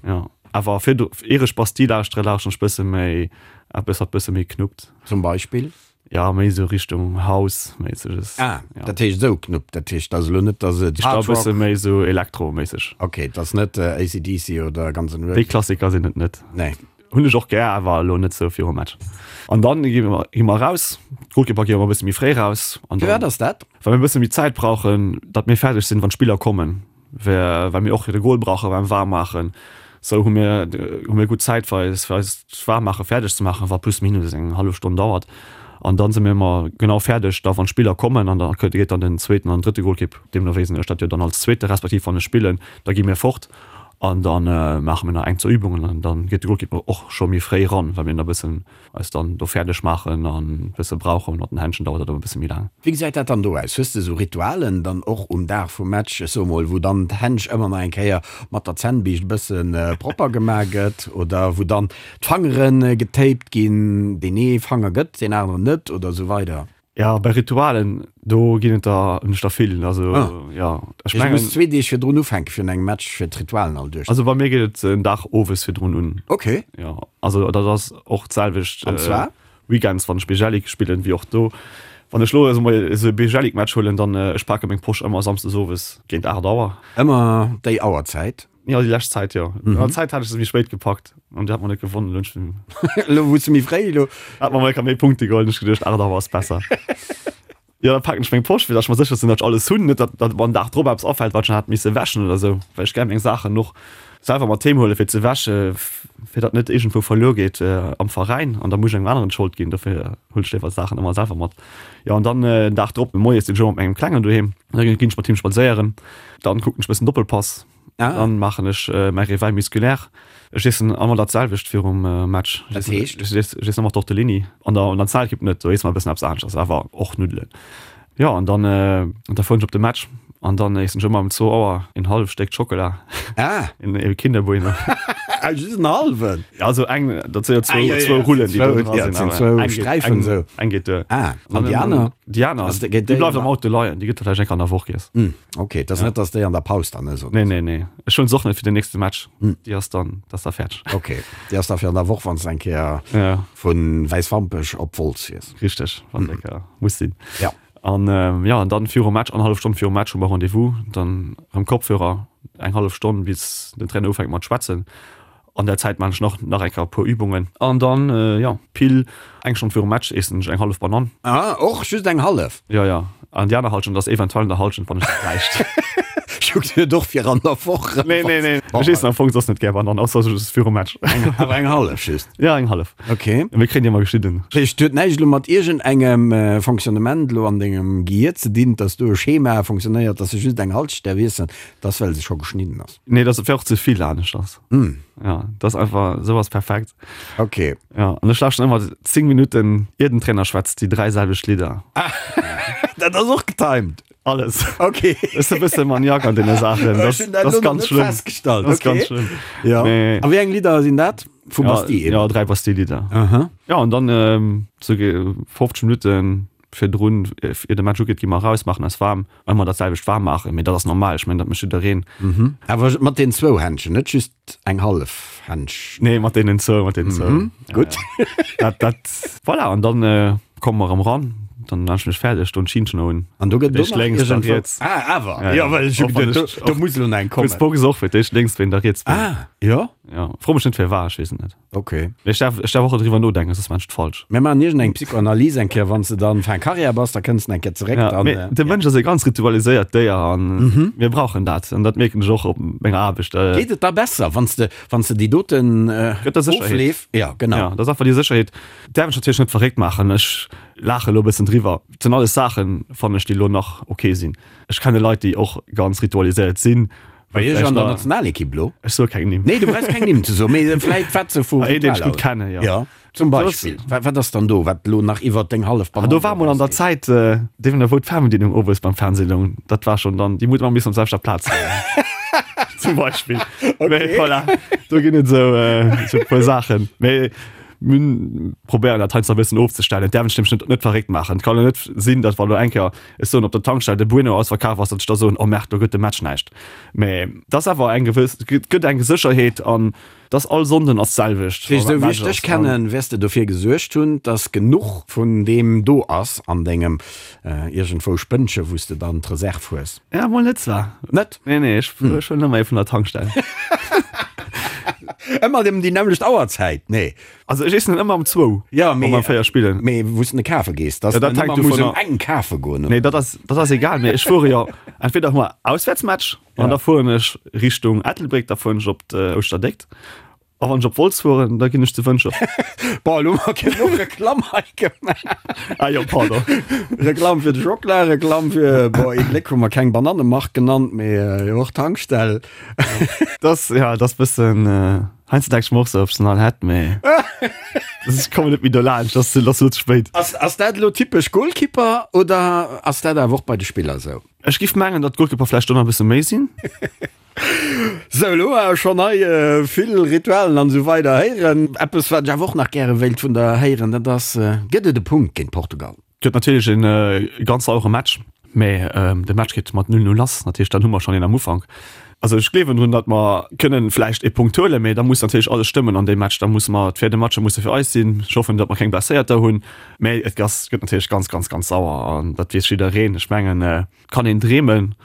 jo. Awer virdu, ier ech Bastille lauschtere, lauschteren ech bësse méi eppes, wat bësse méi knuppt. Zum Beispill? Ja, méi esou Richtung House méisseg. Ah, ja. Dat heescht esou Knupp, dat heescht ass elo net, dass et Hard Rock. E bësse méi esou Elektro-méisseg. Ok, et ass net AC/DC oder Guns N' Roses. Déi Klassiker sinn et net. Nee. Hunn ech och gär, awer elo net esou virum Match. An dann gi mer, gi mer raus. D'Golkeeper gi ëmmer e bësse méi fréi raus. An dann. Firwat ass dat? Well mir e bësse méi Zäit brauchen, datt mir fäerdeg sinn, wann d'Spiller kommen. Well mir och de Goal brauche beim Waarmmaachen. Sou hu mir hu mir gutt Zäit fir eis fir eist Waarmmaache fäerdeg ze maachen, wat plus minus eng hallef Stonn dauert. An dann si mir ëmmer genau fäerdeg da wann d'Spiller kommen an da geet dann den zweeten an drëtte Golkipp, deemno wéi sinn ech dat jo dann als zweete respektiv wann ech spillen, da gi mir fort an da maache mir nach eng zwou Übungen an dann geet de Golkipp och scho méi fréi ran, well mir da bëssen eis dann do fäerdeg maachen an bësse brauchen. Mat den Händschen dauert dat ëmmer bësse méi laang. Wéi gesäit dat dann do aus? Hues de esou Ritualen dann och um Dag vum Match, ech soe mol, wou dann d'Händsch ëmmer nach eng Kéier mat der Zännbiischt e bësse propper gemaach gëtt oder wou dann d'Fangere getaped ginn, deen ee Fanger gëtt, deen aneren net oder esou weider? Ja, bei Ritualen, do ginn et der, hunn ech der vill. Also, ah. ja. Ech mengen. Du muss zwee Deeg virdrun ufänken virun engem Match, fir d'Ritualen all duerch. Also bei mir geet et en Dag owes virdrun un. Okay. Ja, also dat ass och d'selwecht. An zwar? Weekends, wann ech Bijelic spillen, wéi och do. Wann ech lo esou mol esou e Bejelic-Match huelen, dann ech pake meng Posch ëmmer samsdes owes géint 8 Auer. Ëmmer déi Auerzäit? Jo, déi lescht Zäit, jo. An der Zäit hat ech se méi spéit gepackt an déi hat mer net gewonnen. Elo hunn ech. Elo wou s de méi fréi, elo. Hat mer mol enker méi Punkte geholl, hunn ech geduecht, 8 Auer ass besser. Jo, da paken ech meng Posch, fir datt ech mer sécher sinn, datt ech alles hunn, net datt datt mer den Dag drop eppes afält, wat ech nach hätt misse wäschen oder esou, well ech gär meng Saachen och selwer mat heem huelen, fir ze wäsche, fir datt net iergendwou verluer geet am Veräin an da muss ech engem aneren d'Schold ginn. Dofir huelen ech léiwer d'Saachen ëmmer selwer mat. Jo, an dann den Dag drop moies sinn ech ëmmer mat mengem Klengen doheem, da ginn ech mat him spadséieren, dann kucken ech e bëssen Doppelpass. Ah. Dann maachen ech mäi Réveil musculaire. Ech iessen ëmmer dat selwecht virum Match. Dat heescht? Ech iessen ëmmer Tortellini. An der Nationalekipp net, do iesse mer e bëssen eppes aneschters, awer och Nuddelen. Jo, an dann, da fueren ech op de Match an dann iessen ech ëmmer um zwou Auer een halleft Stéck Schockela. Ah! Een Kinder Bueno. Ah, just en hallwen? Ja, also eng, dat si jo zwou, ah, zwou Rullen, déi do dra sinn. Zwou Sträifen esou. Eng geet duer. Ah, an déi aner? Déi aner, déi bleift am Auto leien, déi gëtt da vläicht eng Kéier an der Woch giess. Ok, et ass net, dass déi an der Paus dann ëss, oder? Nee, nee, nee. Ech hunn se och net fir den nächste Match. Déi ass dann, dat ass da fäerdeg. Ok, déi ass da fir an der Woch, wann s de eng Kéier Ja. vu Wäiswampech op Wolz fiers. Richteg, wann eng Kéier muss sinn. Ja. An jo, an dann virum Match, annerhallef Stonn virum Match hu mer Rendez-vous, dann erëm Kopfhörer, eng hallef Stonn bis den Trainer ufänkt mat schwätzen. An der Zäit maan ech nach nach eng Kéier e puer Übungen. An dann, jo, pile eng Stonn virum Match eessen ech eng hallef Banann. Ah, och just eng hallef? Jo, jo. An déi aner Halschent ass eventuell an der Halschent, wann ech se bräicht. Ech hu geduet och fir an der Woch. Nee, nee, nee. Ech eessen am Fong soss net gär Banann, ausser just virum Match. Awer eng hallef just? Jo, eng hallef. Ok. Mir kréien déi ëmmer geschnidden. Dat heescht, huet näischt elo mat iergendengem Fonctionnement elo an dengem Gehier ze dinn, dass do e Schema fonctionnéiert, dass se just eng Halschent däerf iessen, dass well se scho geschnidden ass? Nee, dat wär och ze vill aneschters. Mm. Ja, dat ass einfach, sou ass perfekt. Okay. Ja, an ech lauschten ëmmer 10 Minutten, ier den Trainer schwätzt, déi dräi selwecht Lidder. Ah, dat ass och getimed. Alles. Okay. Ech sinn e bësse Maniak an deene Saachen. Dat, dat ass ganz schlëmm. Festgestallt. Dat ass ganz schlëmm. Ja. Mee, a wéi eng Lidder sinn dat? Vu ja, Bastille eben? Ja, dräi Bastille-Lidder. Aha. Ja, an dann ähm, so 50 Minutten virdrun, ier de Match ugeet, gi mer eraus, maachen eis waarm. Ëmmer dat selwecht waarm maachen, mee dat ass normal, ech mengen, dat mécht jiddereen. Awer mat den zwou Händchen, net just eng hallef Händsch? Nee, mat deenen zwou, mat deenen zwou. Gutt. Dat, dat, voilà, an dann komme mer erëm eran, dann maan ech mech fäerdeg, doen d'Schinnchen un. An do gëtt et och nach iergendwou. Lénks, da riets. Ah, awer, Ja, jo, ja. well ech hu Och wann geduet, ech, do, do muss elo nach eng kommen. Kuerz Box och, fir d'éischt lénks, wéi da riets bin. Ah, jo? Ja, fro mech net firwat, ech weess et net. Ok. Mee ech därf, ech därf och net driwwer nodenken, soss maan ech et falsch. Mir maachen iergend eng Psychoanalyse eng Kéier, wann s de dann fin Carrière bass, da kënns de eng Kéier zeréck, Ja, dann. mee de Mënsch ass e ganz ritualiséiert Déier an mir brauchen dat an dat mierken ech och op menger Aarbecht. Geet et da besser, wann s de, wann s de déi doten Gëtt der Sécherheet. Ofleef, ja, genau. Ja, dat ass einfach déi Sécherheet. Däerf ech natierlech net verréckt maachen, ech laache elo e bëssen driwwer. Et sinn alles Saachen, fannen ech, déi elo nach ok sinn. Ech kenne Leit, déi och ganz ritualiséiert sinn. Bei Iech an der Nationalekipp lo? Ech soe keng Nimm. Nee, du brauchs keng Nimm ze soen, mee vläit wat se vu Een, deen ech gutt kennen, jo. Jo, zum Beispill. Wat, wat ass dann do, wat elo nach iwwert deng hallef Banann Do war mol an der erausgeet? Zäit, deem wou d'Fernbedienung owes beim Fernseh loung, dat war schonn dann, déi huet ëmmer missen op selwechter Plaz leien. Zum Beispill. Mee voilà, do ginn et esou, esou e puer Saachen. Mee mir probéieren dat heiansdo e bëssen ofzestellen. Et däerf een sech nämlech net, net verréckt maachen. Et kann jo net sinn, datt wa lo eng Kéier Ech soen, op der Tankstell de Bueno ausverkaf ass, datt ech da soen, oh merde, do gëtt de Match näischt. Mä et ass awer eng gewëss, et gëtt eng Sécherheet an et ass all Sonnden ass d'selwecht. Wéi esou wéi ech dech kennen, wäers de dofir gesuergt hunn, datt genuch vun deem do ass an dengem iergendwou Spënnche wou s de dann d'Reserv hues. Ja, mol net zwar. Net? Nee, nee, ech huelen ëmmer ee vun der Tankstell. Ëmmer ëm déi nämmlecht Auerzäit? Nee. Also ech iessen en ëmmer um zwou, Ja, wa mee, mer 4 spillen. mee wou s de kafe gees, dass Ja, dat den hänkt ëmmer muss dovunner- um eng kafe goen, Nee, oder? dat ass, dat ass egal, mee ech fuere jo, entweder hu mer Auswäertsmatch an Ja. da fueren ech Richtung Ettelbréck, da fueren ech op d'Ouschterdéckt. A wann ech op Wolz fueren, da ginn ech zu Wëntger. Bon, elo hu mer genuch Reklamm hei gemaach. Ah jo, pardon. Reklamm fir de Schockela, Reklamm fir, bon, ee Gléck hu mer keng Banannemark genannt, mee jo och Tankstell. Das, ja, das bëssen, heiansdo denk ech mer och sou, ob ech se nach hätt, mee ech kommen net méi dolaanscht, das ass elo ze spéit. Ass, ass dat elo typesch Goalkeeper oder ass dat awer och bei de Spiller sou? Ech giff mengen, datt d'Goalkeeper vläicht do nach e bësse méi sinn. Sou, elo hu mer schonn hei vill Ritualen an esou weider héieren. Eppes, wat ech awer och nach gäre wéilt vun der héieren, dat ass, Gëtt et e Punkt géint Portugal? Gëtt natierlech e ganz sauere Match, mä de Match geet mat 0, 0 lass. Dat heescht, dann hu mer schonn een am Ufank. Also ech gleewen drun, datt mer kënnen vläicht ee Punkt huelen, mee da muss natierlech alles stëmmen an deem Match. Da musse mer, d'Véierde Matcher musse fir eis sinn. Ech hoffen, datt mer keng Blesséierter hunn, mee et ass, gëtt natierlech ganz, ganz, ganz sauer an dat weess jiddereen. Ech mengen, et kann een dreemen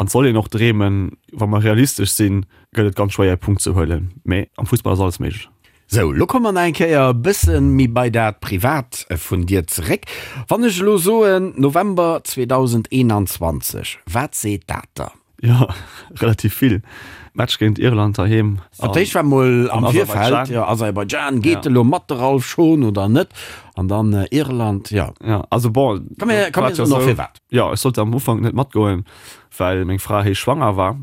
an et soll een och dreemen. Wa mer realistesch sinn, gëtt et ganz schwéier ee Punkt ze huelen, mee am Fussball ass alles méiglech. Sou, lo komme mer nach eng Kéier e bësse méi bei dat Privat vun dir zeréck. Wann ech elo soen November 2021, wat seet dat der? Jo, relativ vill. Match géint Irland heiheem. Fir d'éischt war mol am Virfeld, jo, Aserbaidschan, geet elo mat de Ralph Schon oder net? An dann Irland, jo. Jo, also bon, Komm mir, komm mir soen och firwat. Jo, ech sollt am Ufank net matgoen, well meng Fra héich schwanger war.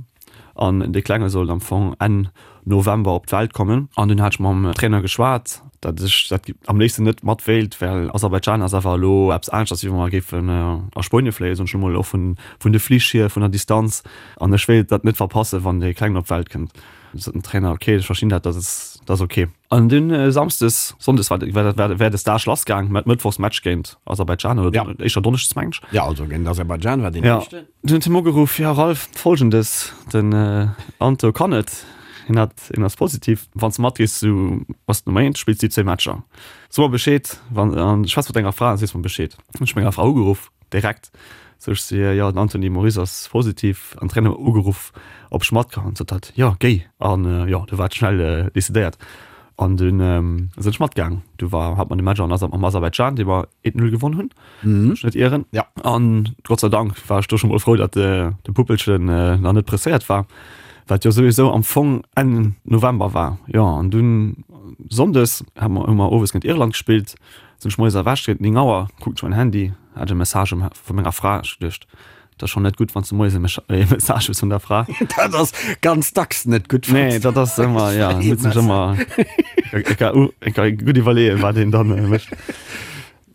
An dee Klenge sollt am Fong Enn November op d'Welt kommen. An dunn hat ech mam Trainer geschwat, datt ech dat am léifsten net mat wéilt, well Aserbaidschan ass awer elo eppes aneschters, wéi wa mer géifen a Spuenie fléien, soen ech elo mol, och vun vun de Flich hier, vun der Distanz. An ech wéilt dat net verpassen, wann dee Klengen op d'Welt kënnt. Du sot den Trainer, ok, ech verstinn dat, dat ass dat ass ok. An dunn samsdes, sonndes war war war de Stage lassgaang, mat mëttwochs Match géint Aserbaidschan oder éischter donneschdes, mengen ech. Jo, also géint Aserbaidschan war deen éischten. Dunn huet hie mer ugeruff, Jo Ralph, Folgendes, den Anto kann net, hien hat, hien ass positiv, wann s de matgees, du bass Nummer eent, spills déi zwéi Matcher. So mer Bescheed, wann, an schwätz mat denger Fra an sees mer Bescheed. Hunn ech menger Fra ugeruff, direkt, sou ech si, jo den Anthony Moris ass positiv, an Trainer ugeruff, ob ech mat kann, sot hatt, jo géi, an jo, du war et schnell decidéiert. An dunn sinn ech matgaang. Du war, hat mer de Match an am Aserbaidschan, dee mer 1-0 gewonn hunn. wann ech net ieren. Ja. An Gott sei Dank war ech do scho mol frou, datt de, de Puppelchen nach net presséiert war, wat jo souwisou am Fong Enn November war. Jo, an dunn Sonndes hu mer, hu mer owes géint Irland gespillt, sinn ech moies erwächt géint 9 Auer, kucken ech mäin Handy, hat ech e Message vu menger Fra. Ech geduecht, Dat ass schonn net gutt, wann s de moies e Message hues vun der Fra. Dat ass ganz dacks net gutt. Nee, dat ass ëmmer, ja, muss sech ëmmer gutt iwwerleeën, wat een dann mécht.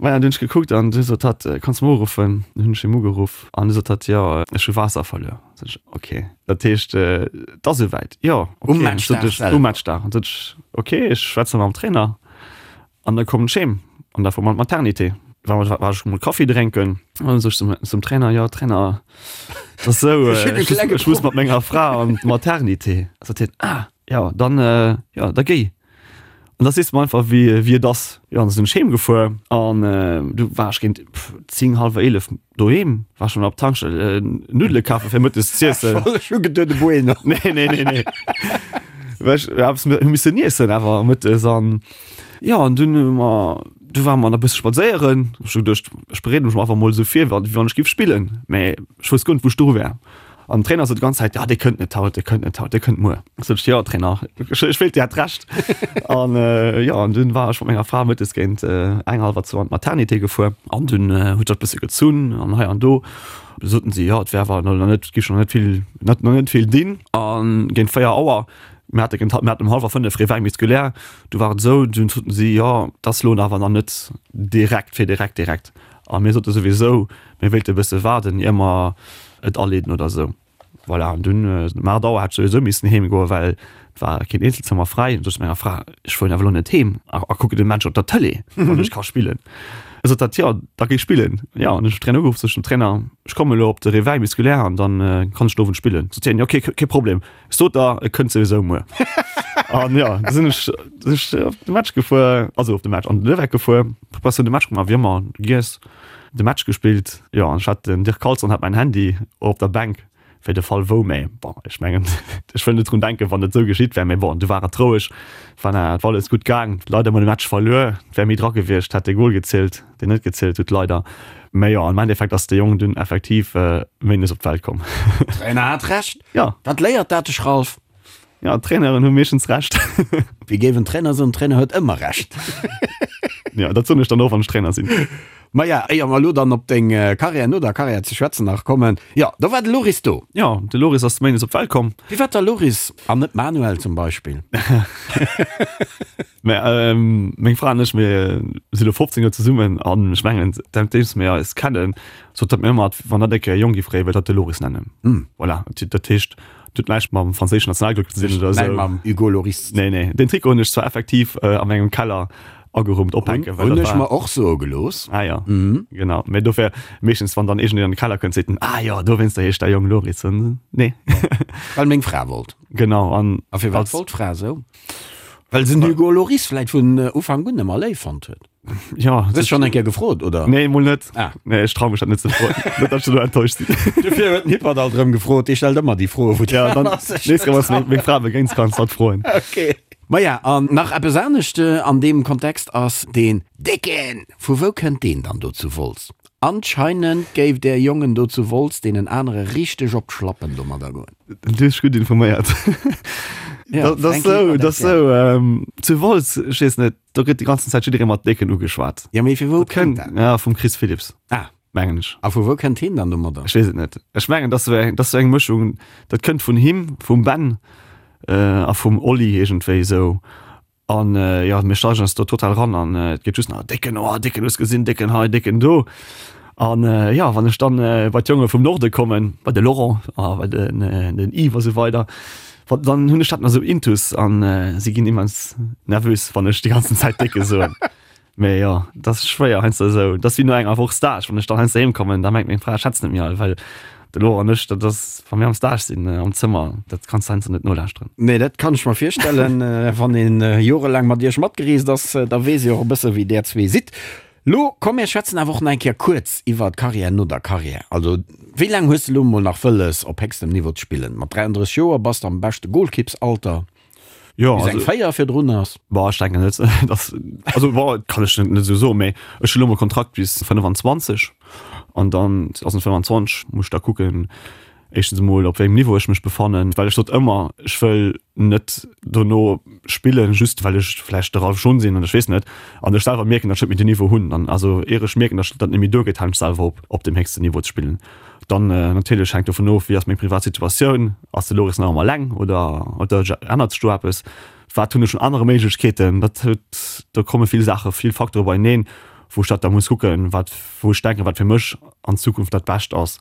Maja, dunn hunn ech gekuckt an du sot hatt, Kanns de mer uruffen? Dunn hunn ech him ugeruff an du sot hatt, Jo, ech hu Waasser verluer. Sot ech, Ok, dat heescht, et ass esouwäit? Jo, ok. Um Matchdag selwer? Um Matchdag. An sot ech, Ok, ech schwätze mam Trainer. An da koum ech heem an da fuer mer an d'Maternité. War mer, war ech mol Kaffi drénken an sot ech zum, zum Trainer, jo Trainer, et ass esou, Ech hunn e ech, klenge ech muss mat menger Fra an d'Maternité. Sot hien, ah jo, dann, jo, da géi. An da sees de mer einfach wéi, wéi et ass. Jo, an da sinn ech heem gefuer an du war ech géint 10, hallwer 11 doheem, war schonn op d'Tankstell Nuddele kafe fir mëttes z'iessen. Ech hu geduet e Bueno. Nee, nee, nee, nee. Well ech eppes hu missen iessen awer mëttes an Jo, an dunn hu mer, du ware mer nach e bësse spadséieren. Ech hu geduecht, ech bereede mech einfach mol esou vir, wéi wann ech géif spillen. Mä ech wousst guer net, wou ech dru wär. An den Trainer sot déi ganz Zäit, Jo, dee kënnt net haut, dee kënnt net haut, dee kënnt muer. Sot ech, Jo, Trainer, ech, ech wéilt, Dir hätt Recht. An jo, an dunn war ech mat menger Fra mëttes géint eng, hallwer zwou an d'Maternité gefuer. An dunn huet dat e bësse gezunn an hei an do. Du soten si, jo, et wär awer nach net, et géif nach net vill, nach net vill dinn. A géint 4 Auer Mir hate géint, mir haten um hallwer 5 Réveil musculaire, du war et esou, dunn soten si, jo, et ass elo awer nach net direkt fir direkt direkt. A mir sote souwisou, mir wéilte e bësse waarden, ier mer et aleeden oder esou. Voilà, an dunn um 8 Auer hat ech souwisou missen heem goen, well et war keen Eenzelzëmmer fräi. An du sot ech menger Fra, ech fueren awer elo net heem a a kucken de Match op der Tëlee, wann ech ka spillen. E sot dat, jo, da géi spillen. Jo, an ech hunn den Trainer ugeruff, sot ech dem Trainer, ech kommen elo op de Réveil musculaire an dann kann ech den Owend spillen. Sot hien, jo, okay, kee Problem. Ech sot der, e kënnt souwisou muer. An jo, du sinn ech, sinn ech op de Match gefuer, also op de Match, an den Leweck gefuer, Preparatioun de Match gemaach, wéi ëmmer, giess, de Match gespillt. Jo, an ech hat, den Dirk Carlson hat mäin Handy op der Bänk, fir de Fall wou, mä bon, ech mengen, ech wëll net drun denken, wann et esou geschitt wär, mä bon, du war et roueg, war et war alles gutt gaang, leider mol de Match verluer, et wär méi dra gewiescht, hätt de Gol gezielt. deen net gezielt huet, leider. Mä jo, am Endeffekt ass de Jong dunn effektiv méindes op d'Welt komm. Trainer hat Recht. Ja. Wat léiert dat dech, Ralph? Ja, d'Traineren hu meeschtens Recht. Wéi géif en Trainer soen, Trainer huet ëmmer Recht. Ja, dat soen ech dann och, wann ech Trainer sinn. Maja, éier mer elo dann op deng Karriär no der Karriär ze schwätzen nach kommen, jo, do war de Loris do. Jo, de Loris ass méindes op d'Welt komm. Firwat da Loris an net Manuel zum Beispill? Mä meng Fra an ech, mir si lo 15 Joer zesummen an ech mengen, säitdeems mir eis kennen, sot hatt mir ëmmer, wann hatt eng Kéier e Jong géif kréien, wëllt hatt de Loris nennen. Voilà, dat heescht, et huet näischt mam franséischen Nationalglück ze dinn oder esou. Näischt mam Hugo Lloris ze dinn. Nee, nee, deen Trikot hunn ech zwar effektiv a mengem Keller. Agerummt ophänken. Hunn ech mer och soe gelooss. Ah jo, genau. Mee dofir, meeschtens wann dann iergendeen an de Keller kënnt, seet en, Ah jo, dowéinster heescht däi Jong Loris. Nee. Well meng Fra wollt. Genau. An A firwat wollt d'Fra esou? Well se den Hugo Lloris vläit vun Ufank un ëmmer léif fonnt huet. Jo. Hues de schonn eng Kéier gefrot, oder? Nee, mol net. Ah. Nee, ech trau mech dat net ze froen. Net, datt ech dono enttäuscht sinn. Dofir huet den Hippert alt erëm gefrot. Dee stellt ëmmer déi Froe, wou Ja, dann nächst Kéier, wann s de meng Fra begéins, kanns de dat froen. Okay. Maja, an nach eppes anescht an deem Kontext ass deen Décken! Vu wou kënnt deen dann do zu Wolz? Anscheinend géif där Jongen do zu Wolz deenen anere richteg op d'Schlappen domadder goen. Du hues dech gutt informéiert. Ja, Dat ass Fränki sou, war dat ass dat, sou, zu Wolz, ech weess net, do gëtt déi ganzen Zäit jidderee mat Décken ugeschwat. Ja, mee vu wou Dat kënnt kënnt, dat? ja, vum Chris Philipps, Ah, mengen ech. a vu wou kënnt heen dann domadder? Ech weess et net. Ech mengen, dat ass sou eng, dat ass sou eng Mëschung, dat kënnt vun him, vum Ben a vum Oli iergendwéi esou. An jo, mir steigen eis do total ran an et geet just nach Décken, oh Décken, hues gesinn, Décken hei, Décken do. An jo, wann ech dann bei d'Jonge vum Norde kommen, bei de Laurent a bei den den Yves a sou weider, wa dann hunn ech dat nach esou intus an si ginn immens nervös, wann ech déi ganzen Zäit Décke soen. Mee jo, dat ass schwéier heiansdo esou. Dat ass wéi no enger Woch Stage, wann ech dann heiansdo heem kommen, da mengt meng Fra, ech schwätz net méi all, well de Laurent an ech, dat ass, wa mir am Stage sinn, am Zëmmer, dat kanns de heiansdo net nolauschteren. Nee, dat kann ech mer virstellen. Wann een jorelaang mat iech matgereest ass, da weess ee och e bësse wéi där zwee sidd. Lo komm mir schwätzen awer och nach eng Kéier kuerz iwwer d'Karriär no der Karriär. Also wéi laang hues de lo mol nach wëlles op héchstem Niveau ze spillen? Mat 33 Joer bass de am beschte Golkippsalter. Jo, Bis eng also, 4 virdrun ass. Boah, ech denken net, dass, also boah, kann ech net, net esou soen, mee ech hunn elo mol Kontrakt bis 25 an dann 2025 muss ech da kucken, éischtens emol op wéi engem Niveau ech mech befannen, well ech sot ëmmer, ech wëll net dono spillen, just well ech vläicht de Ralph Schon sinn an ech weess net, an ech selwer mierken, datt ech net méi den Niveau hunn, dann, also ier ech mierken, datt dat net méi duergeet, halen ech selwer op, op deem héchsten Niveau ze spillen. Dann natierlech hänkt dovun of, wéi ass meng privat Situatioun, ass de Loris nach ëmmer eleng oder oder ännert sech do eppes, wat hunn ech un anere Méiglechkeeten. Dat huet, do komme vill Saache, vill Facteure beieneen, wou ech dat da muss kucken, wat, wou ech denken, wat fir mech an Zukunft dat Bescht ass.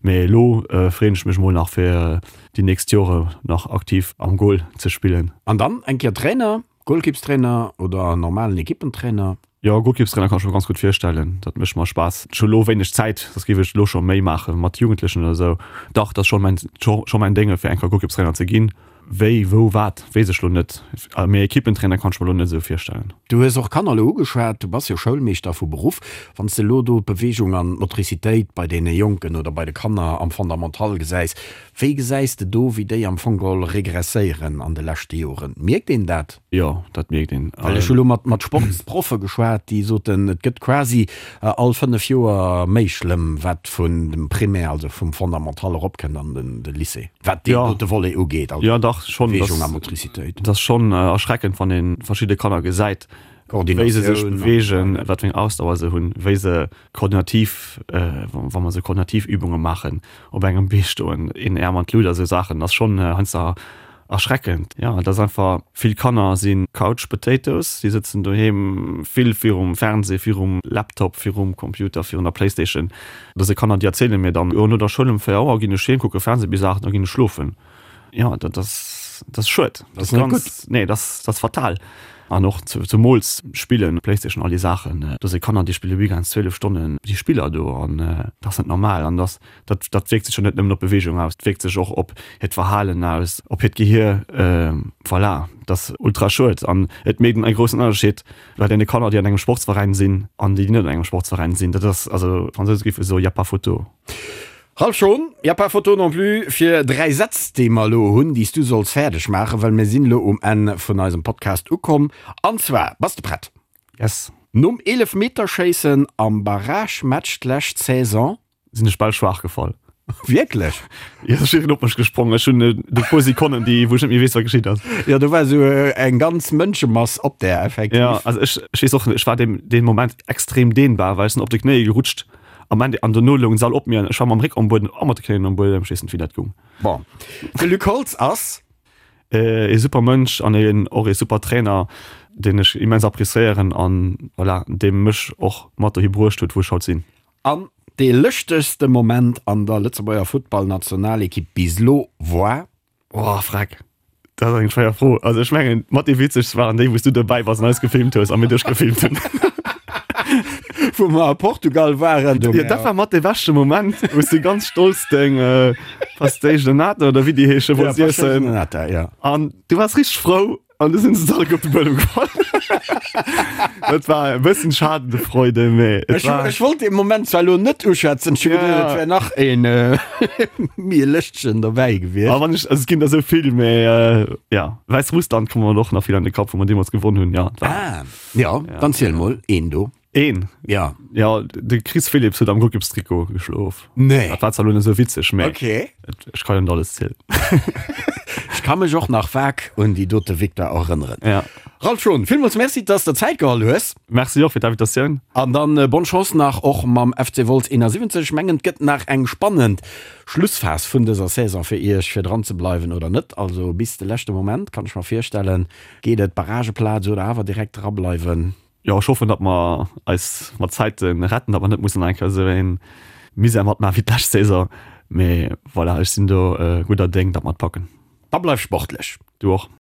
Mee elo freeën ech mech mol nach fir déi nächst Jore nach aktiv am Goal ze spillen. An dann eng Kéier Trainer, Golkippstrainer oder normalen Ekippentrainer? Jo, Golkippstrainer kann ech mer ganz gutt virstellen. Dat mécht mer Spaass. Ech hu lo wéineg Zäit, soss géif ech lo scho méi maache mat Jugendlechen oder esou. Dach, dat ass scho mäin, scho mäin Dénge fir eng Kéier Golkippstrainer ze ginn. Wéi, wou, wat, weess ech lo net. Mee Ekippentrainer kann ech mer lo net esou virstellen. Du hues och Kanner elo ugeschwat. Du bass jo Schoulmeeschter vu Beruff. Wann s de elo do d'Beweegung an d'Motricitéit bei deene Jonken oder bei de Kanner am Fondamental gesäis, Wéi gesäis de do, wéi déi am Fong geholl regresséieren an de leschte Joren? Mierkt een dat? Jo, dat mierkt een. Well ech hu lo mat mat Sportsproffe geschwat, déi soten, et gëtt quasi all 5 Joer méi schlëmm, wat vun dem Primaire, also vum Fondamental eropkënnt an den de Lycée, wat deen dote Volet ugeet, also Beweegung a Motricitéit. Dat ass schonn erschreckend, wann ee verschidde Kanner gesäit, wéi se sech beweegen, wat fir eng Ausdauer se hunn, wéi se koordinativ, wa mer esou koordinativ Übunge maachen, op engem Bee stoen, een Äerm an d'Lut a sou Saachen, ass schonn heiansdo erschreckend. Jo, et ass einfach, vill Kanner si Couch Potatoes, déi sëtzen doheem vill virum Fernseh, virum Laptop, virum Computer, virun der Playstation. Da si Kanner, déi erziele mir dann, jo, no der Schoul um 4 Auer ginn ech heem, kucke Fernseh bis 8, da ginn ech schlofen. Jo, dat ass, dat ass schued. Dat ass net gutt. Nee, dat ass, dat ass fatal. An och zemools Spillen, Playstation, all déi Saachen. Do si Kanner, déi spille weekends 12 Stonnen déi Spiller do an dat ass net normal. An dat, dat, dat wierkt sech jo net nëmmen op d'Beweegung aus, dat wierkt sech och op hiert Verhalen aus, op hiert Gehier. Voilà, dat ass ultra schued. An et mécht en groussen Ënnerscheed bei deene Kanner, déi an engem Sportsveräin sinn an déi, déi net an engem Sportsveräin sinn. Dat ass, also d'Fransouse géife soen, y a pas photo. Ralph Schon, y a pas photo non plus fir 3 Sätz, déi mer elo hunn, déi s du solls fäerdeg maachen, well mir sinn elo um Enn vun eisem Podcast ukomm. An zwar, bass de prett? Yes. Nom Eelefmeterschéissen am Barragematch d'lescht Saison. Sinn ech bal schwaach gefall. Wierklech? Jo, ech sinn op mech gesprong. Ech hunn e puer Sekonnen, déi, wou ech net méi weess, wat geschitt ass. Jo, do war esou eng ganz Mënschemass op där, effektiv. Jo, also ech, ech weess och net, ech war dee, dee Moment extrem dehnbar, well ech sinn op de Knéie gerutscht. Am Ende, an dono loung s'all op mir an ech war mam Réck am Buedem a mat de Knéien am Buedem. Ech weess net, wéi dat goung. Bon, de Luc Holtz ass. Ee super Mënsch an een och ee super Trainer, deen ech immens appréciéieren an voilà, dee mech och mat dohi bruecht huet, wou ech haut sinn. An dee lëschtegste Moment an der Lëtzebuerger Futtballnationalekipp bis lo war? Oh, freck. Dat ass eng schwéier Fro. Also ech mengen, mat déi witzegst waren déi, wou s du dobäi bass an eis gefilmt hues a mir dech gefilmt hunn. Wou mer a Portugal waren. Jo, dat war mat dee beschte Moment, wou s du ganz stolz deng Pastéis de Nata oder wéi déi heesche wollts iessen. Pastéis de Nata, ja. An du waars richteg frou an du sinn se alleguer op de Buedem gefall. Dat war e bëssen Schadendefreude, mee et Ech, war. ech wollt dee Moment zwar elo net uschwätzen, ech hu geduecht, Ja. et wär nach een méi e lëschtegen dobäi gewiescht. A wann ech, also et ginn der esou vill, mee ja, Wäissrussland koum mer och nach vill an de Kapp, wou mer deemools gewonn hunn, ja, et war. Ah, ja, dann ziel mol een do. Een? Ja. Ja, de Chris Philipps huet am Golkippstrikot geschlof. Nee. Dat war zwar elo net esou witzeg, mee Okay. ech ka jo net alles zielen. Ech ka mech och nach vag un déi dote Victoire erënneren. Ja. Ralph Schon, villmools Merci, dass de der Zäit geholl hues. Merci och fir d'Invitatioun. An dann bonne Chance nach och mam FC Wolz 71. Ech mengen, et gëtt nach eng spannend Schlussphas vun dëser Saison fir iech, fir dran ze bleiwen oder net. Also bis de leschte Moment, kann ech mer virstellen, geet et Barrageplaz oder awer direkt drableiwen. Jo, ech hoffen, datt mer eis mat Zäite retten, datt mer net mussen nach eng Kéier esou ee Misär matmaachen wéi d'lescht Saison. Mee voilà, ech sinn do gudder Déng, datt mer et packen. Da bleif sportlech. Du och.